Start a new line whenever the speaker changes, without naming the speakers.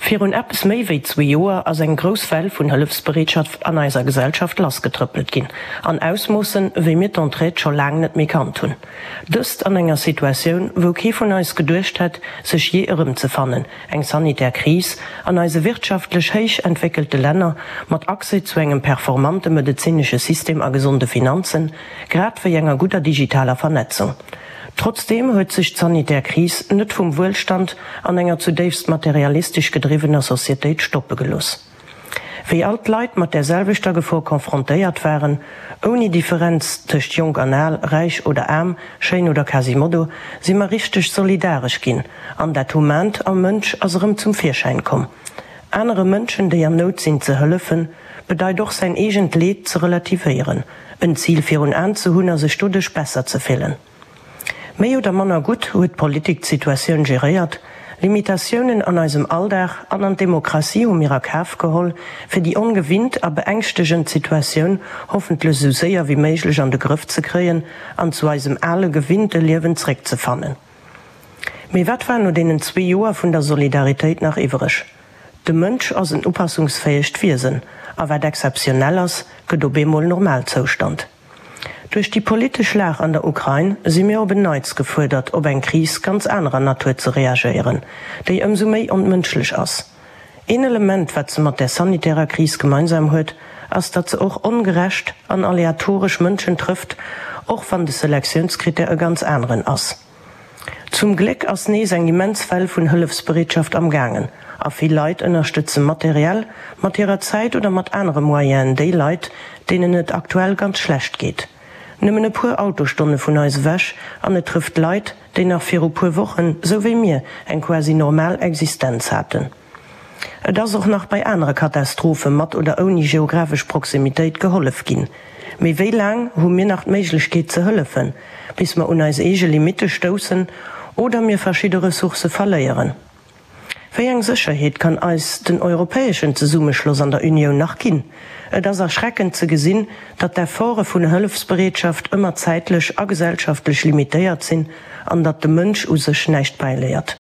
Virun eppes méi wéi zwee Joer ass eng grouss Well vun Hëllefsbereetschaft an eiser Gesellschaft lassgetrëppelt ginn, an Ausmoossen, wéi mir d'Entraide scho laang net méi kannt hunn. Dëst an enger Situatioun, wou kee vun eis geduecht hätt, sech jee erëmzefannen, eng sanitär Kris an eise wirtschaftlech héich entwéckelte Länner, mat Accès zu engem performante medezinesche System a gesonde Finanzen, grad wéi enger gudder digitaler Vernetzung. Trotzdeem huet sech d'sanitär Kris net vum Wuelstand an enger zudéifst materialistesch gedriwwener Societéit stoppe gelooss. Wéi all d'Leit mat där selwechter Gefor confrontéiert waren, ouni Differenz tëscht jonk an al, räich oder aarm, schéin oder Quasimodo, si mer richteg solidaresch ginn an dat Humant am Mënsch ass erëm zum Virschäin komm. Anere Mënschen, déi an Nout sinn, ze hëllefen, bedeit och säin eegent Leed ze relativéieren, en Zil virun Aen ze hunn a sech doduerch besser ze fillen. Méi oder manner gutt huet d'Politik d'Situatioun geréiert. Limitatiounen an eisem Alldag an an d'Demokratie hu mir a Kaf geholl, fir déi ongewinnt a beängschtegend Situatioun hoffentlech esou séier wéi méiglech an de Grëff ze kréien an zu eisem ale gewinnte Liewen zréckzefannen. Mee wat war no deenen zwee Joer vun der Solidaritéit nach iwwereg? De Mënsch ass en upassungsfäegt Wiesen, a wat exzeptionell ass, gëtt op eemol Normalzoustand. Duerch déi politesch Lag an der Ukrain si mir op en Neits gefuerdert, op eng Kris ganz anerer Natur ze reagéieren, déi ëmsou méi onmënschlech ass. Een Element, wat se mat där sanitärer Kris gemeinsam huet, ass, datt se och ongerecht an aleatoresch Mënschen trëfft, och wann de Selektiounskrittär e ganz aneren ass. Zum Gléck ass nees eng immens Well vun Hëllefsbereetschaft am gaangen a vill Leit ënnerstëtze materiell, mat hirer Zäit oder mat anere Moyenen déi Leit, deenen et aktuell ganz schlecht geet. Nëmmen e puer Autostonne vun eis ewech an et trëfft Leit, déi nach viru puer Wochen, sou wéi mir, eng quasi normal Existenz haten. Et ass och nach bei anere Katastrophe mat oder ouni geographesch Proximitéit gehollef ginn. Mee wéi laang hu mir nach d'Méiglechkeet ze hëllefen, bis mer un eis eege Limitte stoussen oder mir verschidde Ressourcë verléieren? Wéi eng Sécherheet kann eis den europäeschen Zesummeschloss an der Unioun nach ginn? Et ass erschreckend ze gesinn, datt d'Efforte vun Hëllefsbereetschaft ëmmer zäitlech a gesellschaftlech limitéiert sinn an datt de Mënsch u sech näischt bäiléiert.